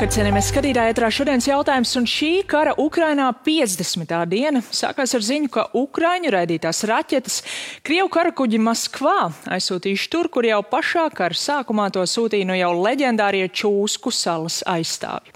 Labvakar, cienījamies skatītāji, ētrā šodienas jautājums, un šī kara Ukrainā 50. diena sākās ar ziņu, ka Ukraiņu raidītās raķetes Krievu karakuģi Maskvā aizsūtījuši tur, kur jau pašā kara sākumā to sūtīja no jau leģendārie Čūsku salas aizstāvji.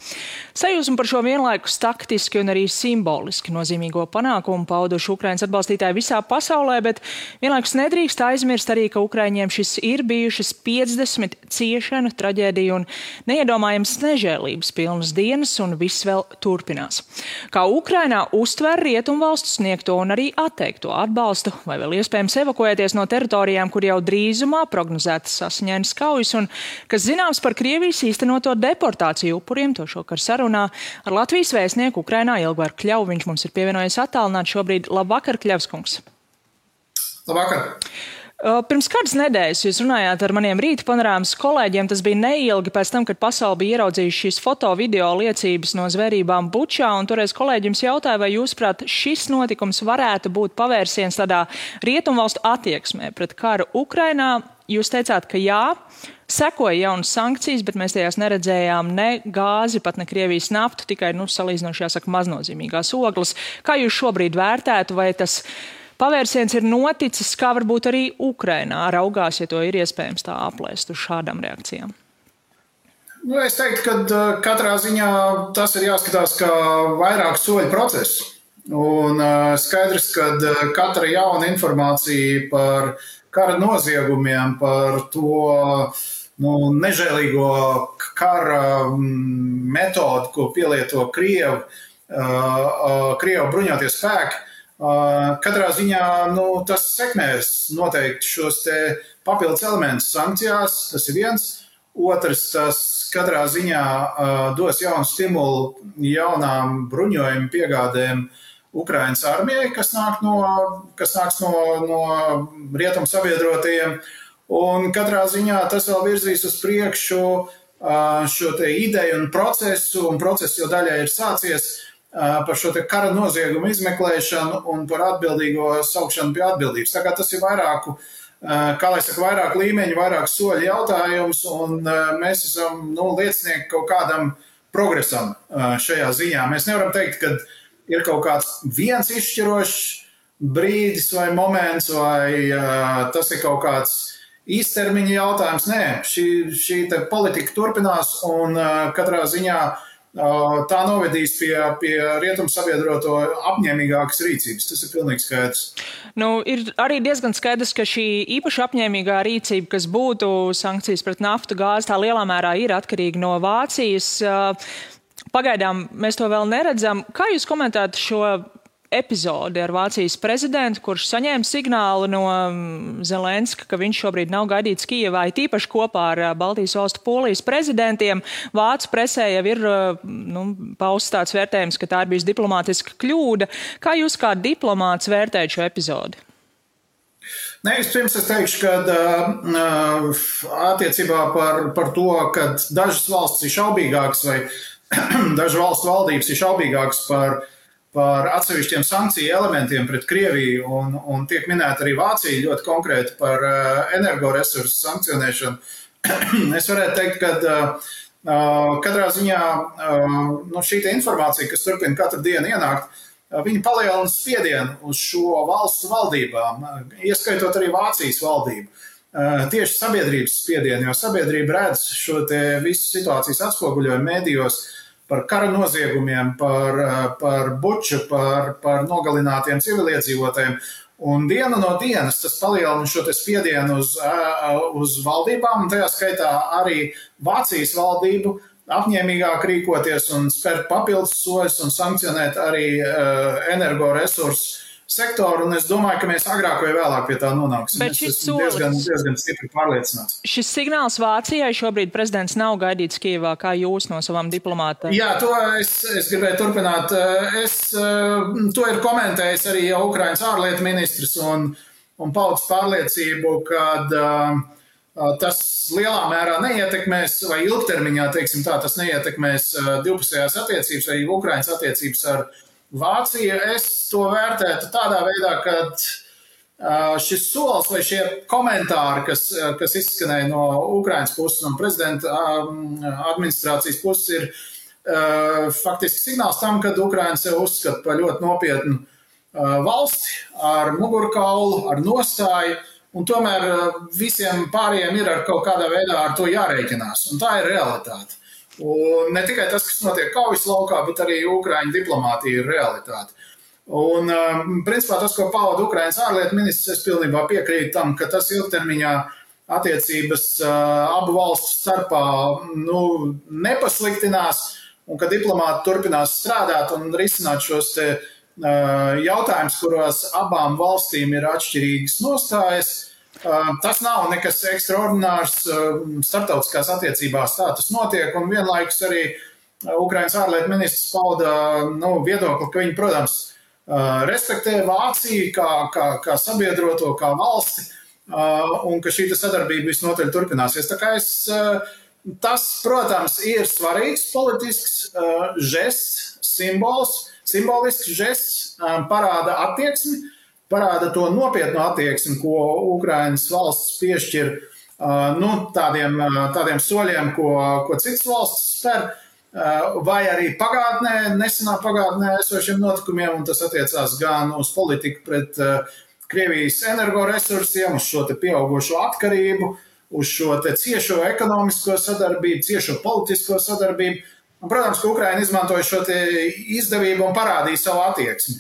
Sajūsmu par šo vienlaikus taktiski un arī simboliski nozīmīgo panākumu pauduši Ukrainas atbalstītāji visā pasaulē, bet vienlaikus nedrīkst aizmirst arī, ka Ukraiņiem šis ir bijušas 50 ciešanu, traģēdiju un neiedomājams nežēlības pilnas dienas, un viss vēl turpinās. Kā Ukrainā uztver rietumvalstu sniegto un arī atteikto atbalstu, vai vēl iespējams evakuēties no teritorijām, kur jau drīzumā prognozētas asiņainas kaujas, un kas zināms par Krievijas īstenoto deportāciju upuriem, to šokar sarunā ar Latvijas vēstnieku Ukrainā Ilgvaru Kļavu. Viņš mums ir pievienojies attālināti šobrīd. Labvakar, Kļavskungs. Labvakar. Pirms kādas nedēļas jūs runājāt ar maniem rīta panorāmas kolēģiem. Tas bija neilgi pēc tam, kad pasauli bija ieraudzījuši šīs foto-video liecības no zvērībām Bučā, un toreiz kolēģi jums jautāja, vai jūsuprāt šis notikums varētu būt pavērsiens tādā rietumvalstu attieksmē pret karu Ukrainā. Jūs teicāt, ka jā, sekoja jaunas sankcijas, bet mēs tajās neredzējām ne gāzi, pat ne Krievijas naftu, tikai, salīdzinoši jāsaka, maznozīmīgās ogles. Kā jūs šobrīd vērtētu, vai tas pavērsiens ir noticis, kā varbūt arī Ukrainā raugās, ja to ir iespējams tā aplēst uz šādām reakcijām? Es teiktu, ka katrā ziņā tas ir jāskatās kā vairāk soļu process. Un skaidrs, ka katra jauna informācija par kara noziegumiem, par to nežēlīgo kara metodu, ko pielieto Krievu bruņotie spēki, katrā ziņā tas sekmēs noteikti šos te papildus elementus sankcijās, tas ir viens. Otrs, tas katrā ziņā dos jaunu stimulu jaunām bruņojumu piegādēm Ukrainas armijai, kas nāks no rietumu sabiedrotajiem. Un katrā ziņā tas vēl virzīs uz priekšu šo te ideju un process jau daļai ir sācies par šo te kara noziegumu izmeklēšanu un par atbildīgo saukšanu pie atbildības. Tā kā tas ir vairāk līmeņu, vairāk soļu jautājums, un mēs esam liecinieki kaut kādam progresam šajā ziņā. Mēs nevaram teikt, ka ir kaut kāds viens izšķirošs brīdis vai moments, vai tas ir kaut kāds īstermiņa jautājums. Nē, šī te politika turpinās, un katrā ziņā tā novedīs pie rietumu sabiedroto apņēmīgākas rīcības. Tas ir pilnīgi skaidrs. Ir arī diezgan skaidrs, ka šī īpaši apņēmīgā rīcība, kas būtu sankcijas pret naftu, gāzi, tā lielā mērā ir atkarīga no Vācijas. Pagaidām mēs to vēl neredzam. Kā jūs komentētu šo epizodi ar Vācijas prezidentu, kurš saņēma signālu no Zelenska, ka viņš šobrīd nav gaidīts Kijevā, tīpaši kopā ar Baltijas valstu Polijas prezidentiem? Vācu presē jau ir pausts tāds vērtējums, ka tā ir bijusi diplomātiska kļūda. Kā jūs kā diplomāts vērtējat šo epizodi? Vispirms es teikšu, ka attiecībā par to, ka dažas valstis ir šaubīgākas vai dažu valstu valdības ir šaubīgākas par atsevišķiem sankciju elementiem pret Krieviju, un tiek minēta arī Vācija ļoti konkrēti par energoresursu sankcionēšanu. Es varētu teikt, ka katrā ziņā šī informācija, kas turpina katru dienu ienākt, viņi palielina spiedienu uz šo valstu valdībām, ieskaitot arī Vācijas valdību. Tieši sabiedrības spiedienu, jo sabiedrība redz šo te visu situācijas atspoguļojumu mēdījos par kara noziegumiem, par Buču, par nogalinātiem civiliedzīvotājiem. Un diena no dienas tas palielina šo te spiedienu uz valdībām, un tajā skaitā arī Vācijas valdību apņēmīgāk rīkoties un spērt papildus soļus un sankcionēt arī energoresursu sektoru, un es domāju, ka mēs agrāk vai vēlāk pie tā nonāksim. Es esmu diezgan stipri pārliecināts. Šis signāls Vācijai šobrīd prezidents nav gaidīts Kijevā, kā jūs no savām diplomātiem? Jā, to es gribēju turpināt. To ir komentējis arī jau Ukrainas ārlietu ministrs un paudis pārliecību, ka tas lielā mērā neietekmēs, vai ilgtermiņā, teiksim tā, tas neietekmēs divpusējās attiecības vai Ukrainas attiecības ar Vācija. Es to vērtētu tādā veidā, ka šis solis vai šie komentāri, kas izskanēja no Ukrainas puses un prezidenta administrācijas puses, faktiski signāls tam, ka Ukraina sev uzskata par ļoti nopietnu valsti ar mugurkaulu, ar nostāju, un tomēr visiem pārējiem ir ar kaut kādā veidā ar to jārēķinās, un tā ir realitāte. Un ne tikai tas, kas notiek kaujas laukā, bet arī Ukraiņu diplomātija ir realitāte. Un, principā, tas, ko pauda Ukrainas ārlietu ministrs, es pilnībā piekrītu tam, ka tas ilgtermiņā attiecības abu valstu starpā nepasliktinās, un ka diplomāti turpinās strādāt un risināt šos te jautājums, kuros abām valstīm ir atšķirīgas nostājas. Tas nav nekas ekstraordinārs starptautiskās attiecībās, tā tas notiek, un vienlaikus arī Ukrainas ārlietu ministrs pauda viedokli, ka viņi, protams, respektē Vāciju kā sabiedroto, kā valsti, un ka šī sadarbība visnotaļ turpināsies. Tā kā tas, protams, ir svarīgs politisks žests, simbolisks žests, parāda attieksmi, parāda to nopietnu attieksmi, ko Ukrainas valsts piešķir tādiem soļiem, ko citas valstis spēr, vai arī nesenā pagātnē esošiem notikumiem, un tas attiecās gan uz politiku pret Krievijas energoresursiem, uz šo te pieaugušo atkarību, uz šo te ciešo ekonomisko sadarbību, ciešo politisko sadarbību. Un, protams, ka Ukraina izmantoja šo te izdevību un parādīja savu attieksmi.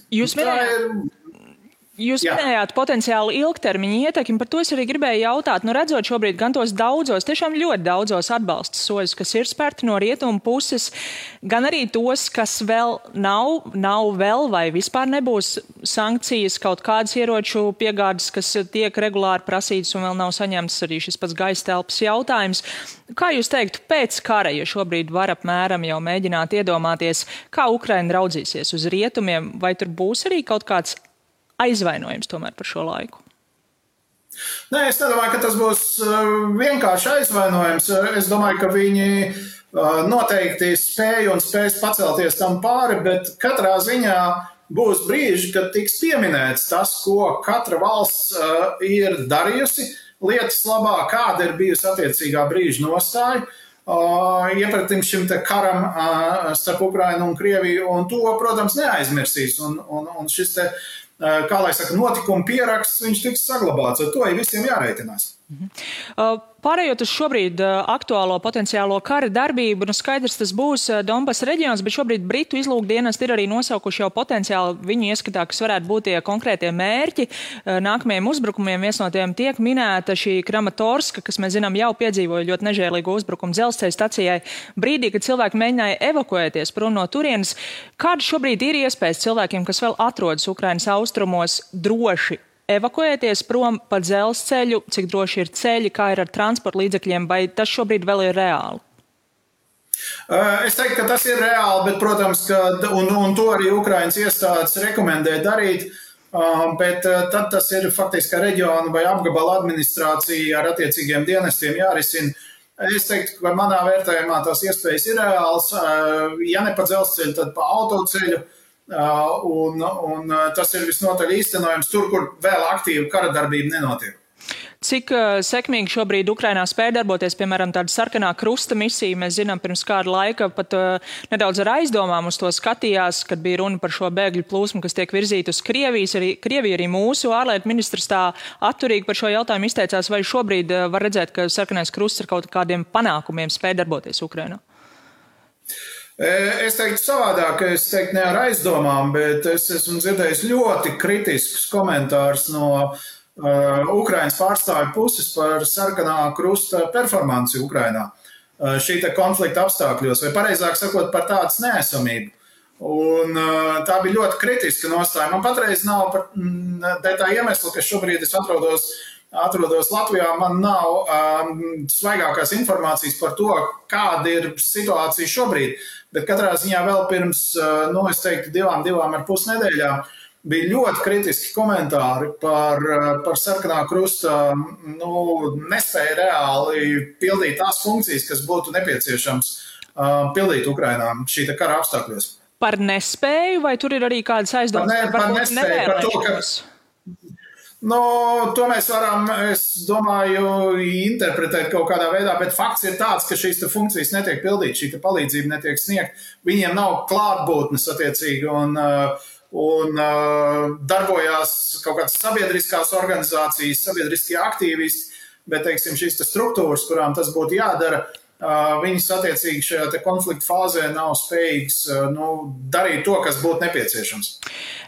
Jūs minējāt potenciāli ilgtermiņa ietekmi, par to es arī gribēju jautāt. Redzot šobrīd gan tos tiešām ļoti daudzos atbalsta soļus, kas ir spērti no rietumu puses, gan arī tos, kas vēl nav vēl vai vispār nebūs sankcijas, kaut kādas ieroču piegādes, kas tiek regulāri prasītas un vēl nav saņemtas, arī šis pats gaisa telpas jautājums. Kā jūs teiktu, pēc kara, ja šobrīd var apmēram jau mēģināt iedomāties, kā Ukraina raudzīsies uz rietumiem, vai tur būs arī kaut kāds aizvainojums tomēr par šo laiku? Nē, es nedomāju, ka tas būs vienkārši aizvainojums. Es domāju, ka viņi noteikti spēj un spēs pacelties tam pāri, bet katrā ziņā būs brīži, kad tiks pieminēts tas, ko katra valsts ir darījusi lietas labā, kāda ir bijusi attiecīgā brīža nostāja iepratim šim te karam starp Ukrainu un Krieviju, un to, protams, neaizmirsīs. Un šis te, kā lai saka, notikuma pieraksts, viņš tiks saglabāts, ar to ir visiem jārēķinās. Pārējot uz šobrīd aktuālo potenciālo kara darbību, skaidrs tas būs Donbass reģions, bet šobrīd Britu izlūkdienesti ir arī nosaukuši jau potenciāli viņu ieskatā, kas varētu būt tie konkrētie mērķi nākamajiem uzbrukumiem. Viens no tiem tiek minēta šī Kramatorska, kas mēs zinām jau piedzīvoja ļoti nežēlīgu uzbrukumu dzelzceļa stacijai brīdī, kad cilvēki mēģināja evakuēties prom no turienes. Kāda šobrīd ir iespējas cilvēkiem, kas vēl atrodas Ukrainas austrumos, droši evakuēties prom pa dzelzceļu, cik droši ir ceļi, kā ir ar transporta līdzekļiem, vai tas šobrīd vēl ir reāli? Es teiktu, ka tas ir reāli, bet, protams, un to arī Ukrainas iestādes rekomendē darīt, bet tad tas ir faktiski reģiona vai apgabala administrācija ar attiecīgiem dienestiem jārisina. Es teiktu, ka manā vērtējumā tās iespējas ir reāls, ja ne pa dzelzceļu, tad pa autoceļu. Un tas ir visnotaļ īstenojams tur, kur vēl aktīva kara darbība nenotiek. Cik sekmīgi šobrīd Ukrainā spēj darboties, piemēram, tāda sarkanā krusta misija? Mēs zinām, pirms kāda laika pat nedaudz ar aizdomām uz to skatījās, kad bija runa par šo bēgļu plūsmu, kas tiek virzīta uz Krieviju. Arī mūsu ārlietu ministrs tā atturīgi par šo jautājumu izteicās, vai šobrīd var redzēt, ka sarkanais krusts ar kaut kādiem panākumiem spēj darboties Ukrainā? Es teiktu savādāk, es teiktu ne ar aizdomām, bet es esmu dzirdējis ļoti kritiskus komentārus no Ukrainas pārstāvju puses par sarkanā krusta performanci Ukrainā šī te konflikta apstākļos, vai pareizāk sakot par tādas neesamību. Un tā bija ļoti kritiska nostāja. Man patreiz nav tā iemesla, ka šobrīd es atrodos Latvijā, man nav svaigākās informācijas par to, kāda ir situācija šobrīd, bet katrā ziņā vēl pirms, es teiktu, 2,5 nedēļām bija ļoti kritiski komentāri par sarkanā krusta, nespēja reāli pildīt tās funkcijas, kas būtu nepieciešams pildīt Ukrainā šī kara apstākļos. Par nespēju, vai tur ir arī kādas aizdomas? Par nespēju, par to, ka Nu, to mēs varam, es domāju, interpretēt kaut kādā veidā, bet fakts ir tāds, ka šīs funkcijas netiek pildītas, šī palīdzība netiek sniegta. Viņiem nav klātbūtnes attiecīgi un darbojās kaut kādas sabiedriskās organizācijas, sabiedriskie aktīvisti, bet, teiksim, šīs struktūras, kurām tas būtu jādara, viņas attiecīgi šajā konflikta fāzē nav spējīgas darīt to, kas būtu nepieciešams.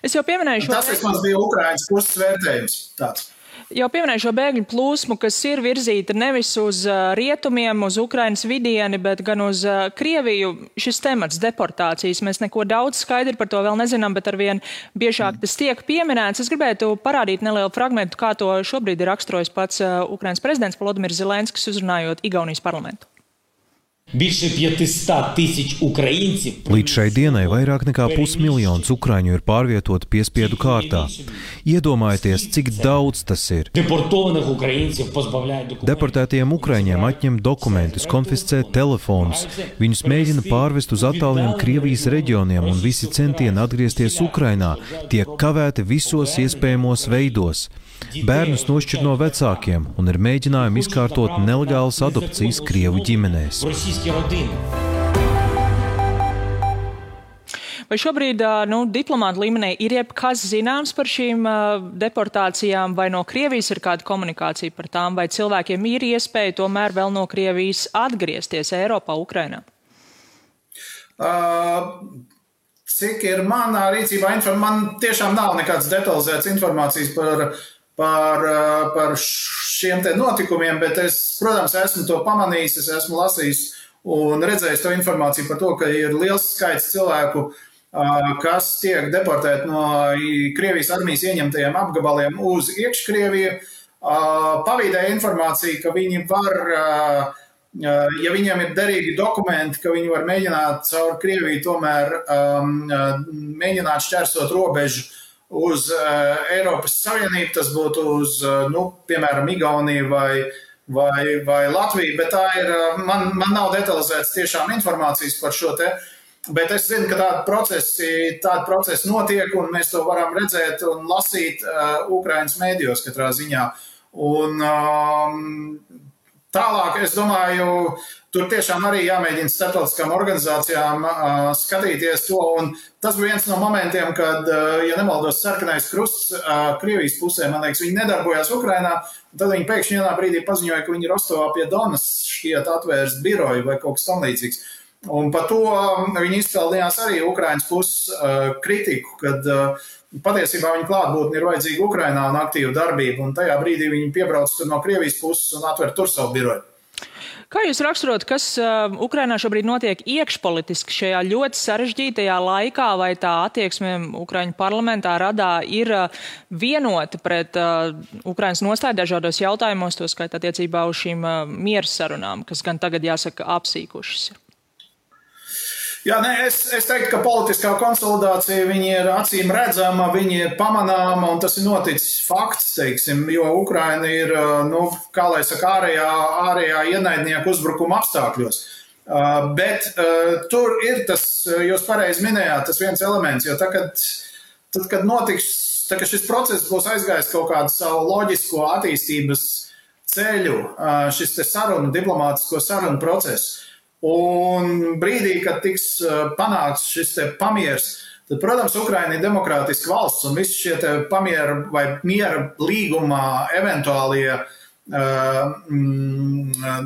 Es jau pieminēju šo... Tas vismaz bija Ukrainas puses vērtējums tāds. Jau pieminēju šo bēgļu plūsmu, kas ir virzīta nevis uz rietumiem, uz Ukrainas vidieni, bet gan uz Krieviju. Šis temats deportācijas, mēs neko daudz skaidri par to vēl nezinām, bet arvien biežāk tas tiek pieminēts. Es gribētu parādīt nelielu fragmentu, kā to šobrīd ir raksturojis pats Ukrainas prezidents Volodimirs Zelenskis, uzrunājot Igaunijas parlamentu. Līdz šai dienai vairāk nekā 500 000 ukraiņu ir pārvietoti piespiedu kārtā. Iedomājieties, cik daudz tas ir. Deportētiem ukraiņiem atņem dokumentus, konfiscē telefonus. Viņus mēģina pārvest uz attāliem Krievijas reģioniem, un visi centieni atgriezties Ukrainā tiek kavēti visos iespējamos veidos. Bērnus nošķir no vecākiem un ir mēģinājumi izkārtot nelegālas adopcijas Krievu ģimenēs. Vai šobrīd diplomāta līmenī ir jebkas zināms par šīm deportācijām, vai no Krievijas ir kāda komunikācija par tām, vai cilvēkiem ir iespēja tomēr vēl no Krievijas atgriezties Eiropā, Ukrainā? Cik ir manā rīcībā man tiešām nav nekādas detalizētas informācijas par šiem te notikumiem, bet es, protams, esmu to pamanījis, es esmu lasījis un redzējis to informāciju par to, ka ir liels skaits cilvēku, kas tiek deportēti no Krievijas armijas ieņemtajiem apgabaliem uz iekškrieviju. Pavīdēja informācija, ka viņi var, ja viņiem ir derīgi dokumenti, ka viņi var mēģināt caur Krieviju tomēr mēģināt šķērsot robežu uz Eiropas Savienību, tas būtu uz, piemēram, Igauniju vai Latviju, bet tā ir, man nav detalizētas tiešām informācijas par šo te, bet es zinu, ka tādi procesi notiek, un mēs to varam redzēt un lasīt Ukrainas mēdījos katrā ziņā. Un tālāk, es domāju, tur tiešām arī jāmēģina starptautiskām organizācijām skatīties to, un tas bija viens no momentiem, kad, ja nemaldos, Sarkanais krusts Krievijas pusē, man liekas, viņi nedarbojās Ukrainā, un tad viņi pēkšņi vienā brīdī paziņoja, ka viņi Rostovā pie Donas šķiet atvērst biroju vai kaut kas tam līdzīgs. Un par to viņi izpildījās arī Ukrainas puses kritiku, kad patiesībā viņa klātbūtne ir vajadzīga Ukrainā un aktīva darbība, un tajā brīdī viņi piebrauc tur no Krievijas puses un atver tur savu biroju. Kā jūs raksturot, kas Ukrainā šobrīd notiek iekšpolitiski šajā ļoti sarežģītajā laikā, vai tā attieksme Ukraiņu parlamentā radā ir vienota pret Ukrainas nostāju dažādos jautājumos, to skait attiecībā uz šīm miera sarunām, kas gan tagad jāsaka apsīkušas? Jā, es teiktu, ka politiskā konsolidācija viņi ir acīm redzama, viņi ir pamanāma, un tas ir noticis fakts, teiksim, jo Ukraina ir, kā lai saka, ārējā ienaidnieku uzbrukuma apstākļos. Bet tur ir tas, jūs pareizi minējāt, tas viens elements, jo tad, kad notiks, kad šis process būs aizgājis kaut kādu savu loģisko attīstības ceļu, šis te diplomātisko sarunu process, un brīdī, kad tiks panākts šis te pamiers, tad, protams, Ukraina ir demokrātiska valsts, un visi šie te pamiera vai miera līgumā eventuālie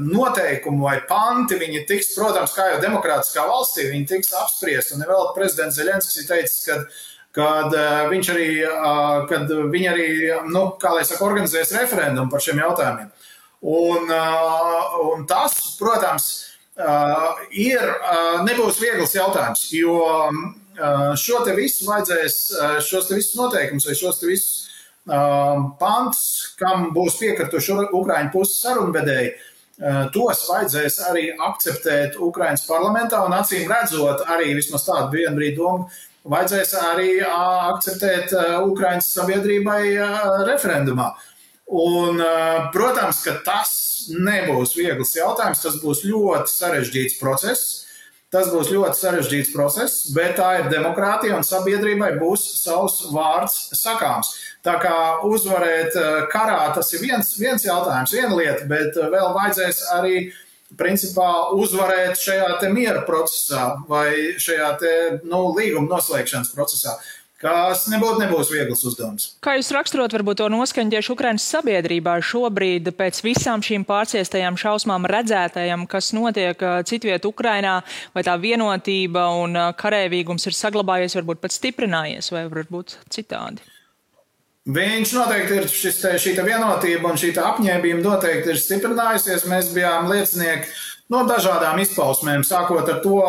noteikumi vai panti, viņi tiks, protams, kā jau demokrātiskā valstī, viņi tiks apspriest, un vēl prezidents Zelenskis ir teicis, kad viņi arī, kā lai saka, organizēs referendumu par šiem jautājumiem. Un tas, protams, nebūs viegls jautājums, jo šo te visu vajadzēs, šos te visus noteikumus vai šos te visus pantus, kam būs piekrituši Ukraiņu puses sarunvedēji, tos vajadzēs arī akceptēt Ukrainas parlamentā un acīm redzot arī vismaz tādu vienbrīd domu, vajadzēs arī akceptēt Ukrainas sabiedrībai referendumā. Un, protams, ka tas nebūs viegls jautājums, tas būs ļoti sarežģīts process. Tas būs ļoti sarežģīts process, bet tā ir demokrātija un sabiedrībai būs savs vārds sakāms. Tā kā uzvarēt karā, tas ir viens jautājums, viena lieta, bet vēl vajadzēs arī principā uzvarēt šajā te miera procesā vai šajā te līguma noslēgšanas procesā, kas nebūs viegls uzdevums. Kā jūs raksturot varbūt to noskaņu tieši Ukrainas sabiedrībā šobrīd pēc visām šīm pārciestajām šausmām redzētajām, kas notiek citviet Ukrainā, vai tā vienotība un karēvīgums ir saglabājies, varbūt pat stiprinājies, vai varbūt citādi? Viņš noteikti ir šī vienotība un šī apņēmība noteikti ir stiprinājusies. Mēs bijām liecinieki no dažādām izpausmēm, sākot ar to,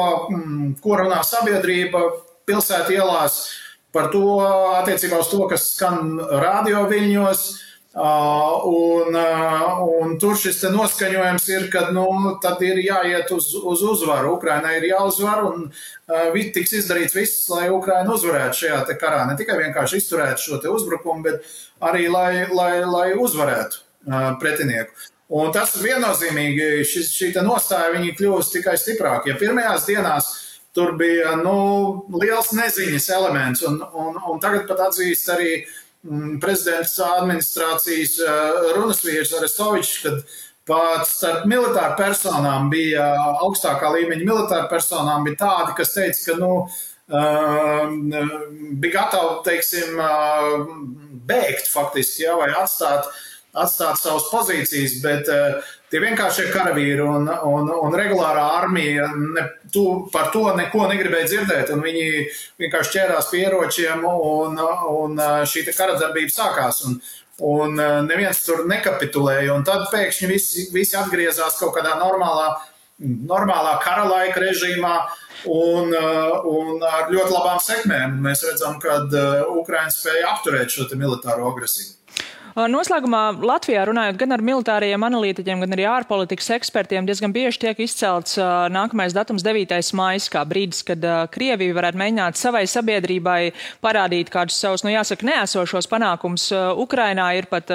ko runā sabiedrība pilsētu ielās, par to attiecībā uz to, kas skan radio viļņos, un tur šis te noskaņojums ir, ka tad ir jāiet uz uzvaru. Ukrainai ir jāuzvar un tiks izdarīts viss, lai Ukraina uzvarētu šajā te karā. Ne tikai vienkārši izturētu šo te uzbrukumu, bet arī lai uzvarētu pretinieku. Un tas viennozīmīgi, šī te nostāja viņi kļūst tikai stiprāk. Ja pirmajās dienās tur bija liels neziņas elements, un tagad pat atzīst arī prezidents administrācijas runasvīrs Arestovičs, kad pat starp militāru personām bija, augstākā līmeņa militāru personām bija tādi, kas teica, ka bija gatavi, teiksim, bēgt faktiski, vai atstāt savas pozīcijas, bet tie vienkāršie karavīri un regulārā armija par to neko negribēja dzirdēt, un viņi vienkārši ķērās pie ieročiem, un šī karadarbība sākās, un neviens tur nekapitulēja, un tad pēkšņi visi atgriezās kaut kādā normālā kara laika režīmā, un ar ļoti labām sekmēm. Mēs redzam, ka Ukraina spēja apturēt šo militāro agresiju. Noslēgumā Latvijā runājot gan ar militāriem analītiķiem, gan arī ārpolitikas ekspertiem, diezgan bieži tiek izcelts nākamais datums 9. maijs, kā brīdis, kad Krievija varētu mēģināt savai sabiedrībai parādīt kādus savus, jāsaka, neesošos panākumus. Ukrainā ir pat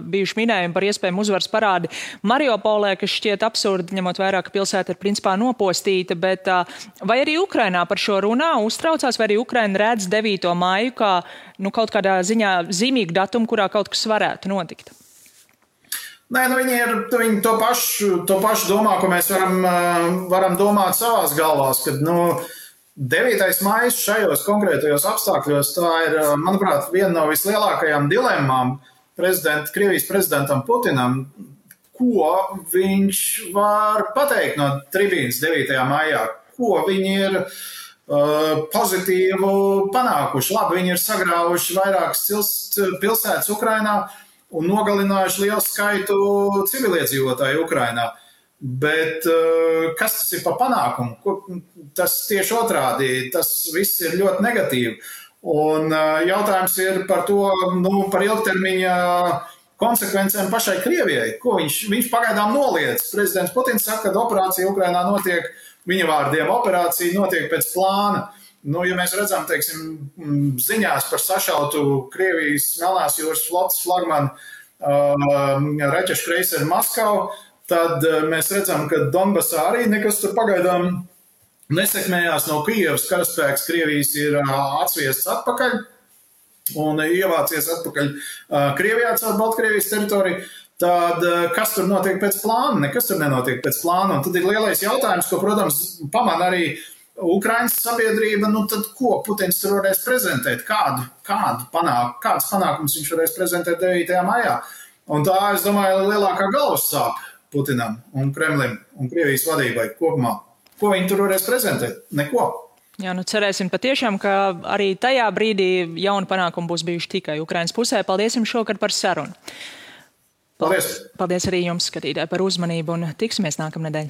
bijuši minējumi par iespējamu uzvaras parādi Mariupolē, kas šķiet absurdi, ņemot vērā, ka pilsēta ir principā nopostīta, bet vai arī Ukrainā par šo runā uztraucās, vai arī Ukraina redz 9. maiju kā kaut kādā ziņā zīmīgu datumu, kurā kaut kas varētu notikt? Nē, viņi to pašu domā, ko mēs varam domāt savās galvās, kad 9. maijs šajos konkrētajos apstākļos, tā ir, manuprāt, viena no vislielākajām dilemmām Krievijas prezidentam Putinam, ko viņš var pateikt no tribīnas 9. maijā, ko viņi ir pozitīvu panākuši. Labi, viņi ir sagrāvuši vairākas pilsētas Ukrainā un nogalinājuši lielu skaitu civiliedzīvotāju Ukrainā. Bet kas tas ir par panākumu? Tas tieši otrādi, tas viss ir ļoti negatīvi. Un jautājums ir par to, par ilgtermiņa konsekvencēm pašai Krievijai, ko viņš pagaidām noliedz. Prezidents Putins saka, ka operācija Ukrainā notiek, viņa vārdiem, operācija notiek pēc plāna. Ja mēs redzam, teiksim, ziņās par sašautu Krievijas Melnās jūras flotes flagmanu raķešu kreiseru Maskavu, tad mēs redzam, ka Donbasā arī nekas tur pagaidām nesekmējās no Kijevas. Karaspēks Krievijas ir atsviests atpakaļ un ievācies atpakaļ Krievijā caur Baltkrievijas teritoriju. Tad kas tur notiek pēc plāna? Nekas tur nenotiek pēc plāna. Un tad ir lielais jautājums, ko, protams, pamana arī Ukrainas sabiedrība. Tad ko Putins tur varēs prezentēt? Kāds panākums viņš varēs prezentēt 9. maijā? Un tā, es domāju, ir lielākā galvas sāpe Putinam un Kremlim un Krievijas vadībai kopumā. Ko viņi tur varēs prezentēt? Neko. Jā, cerēsim patiešām, ka arī tajā brīdī jauni panākumi būs bijuši tikai Ukrainas pusē. Paldies jums šovakar par sarunu. Paldies! Paldies arī jums, skatītāji, par uzmanību un tiksimies nākamnedēļ.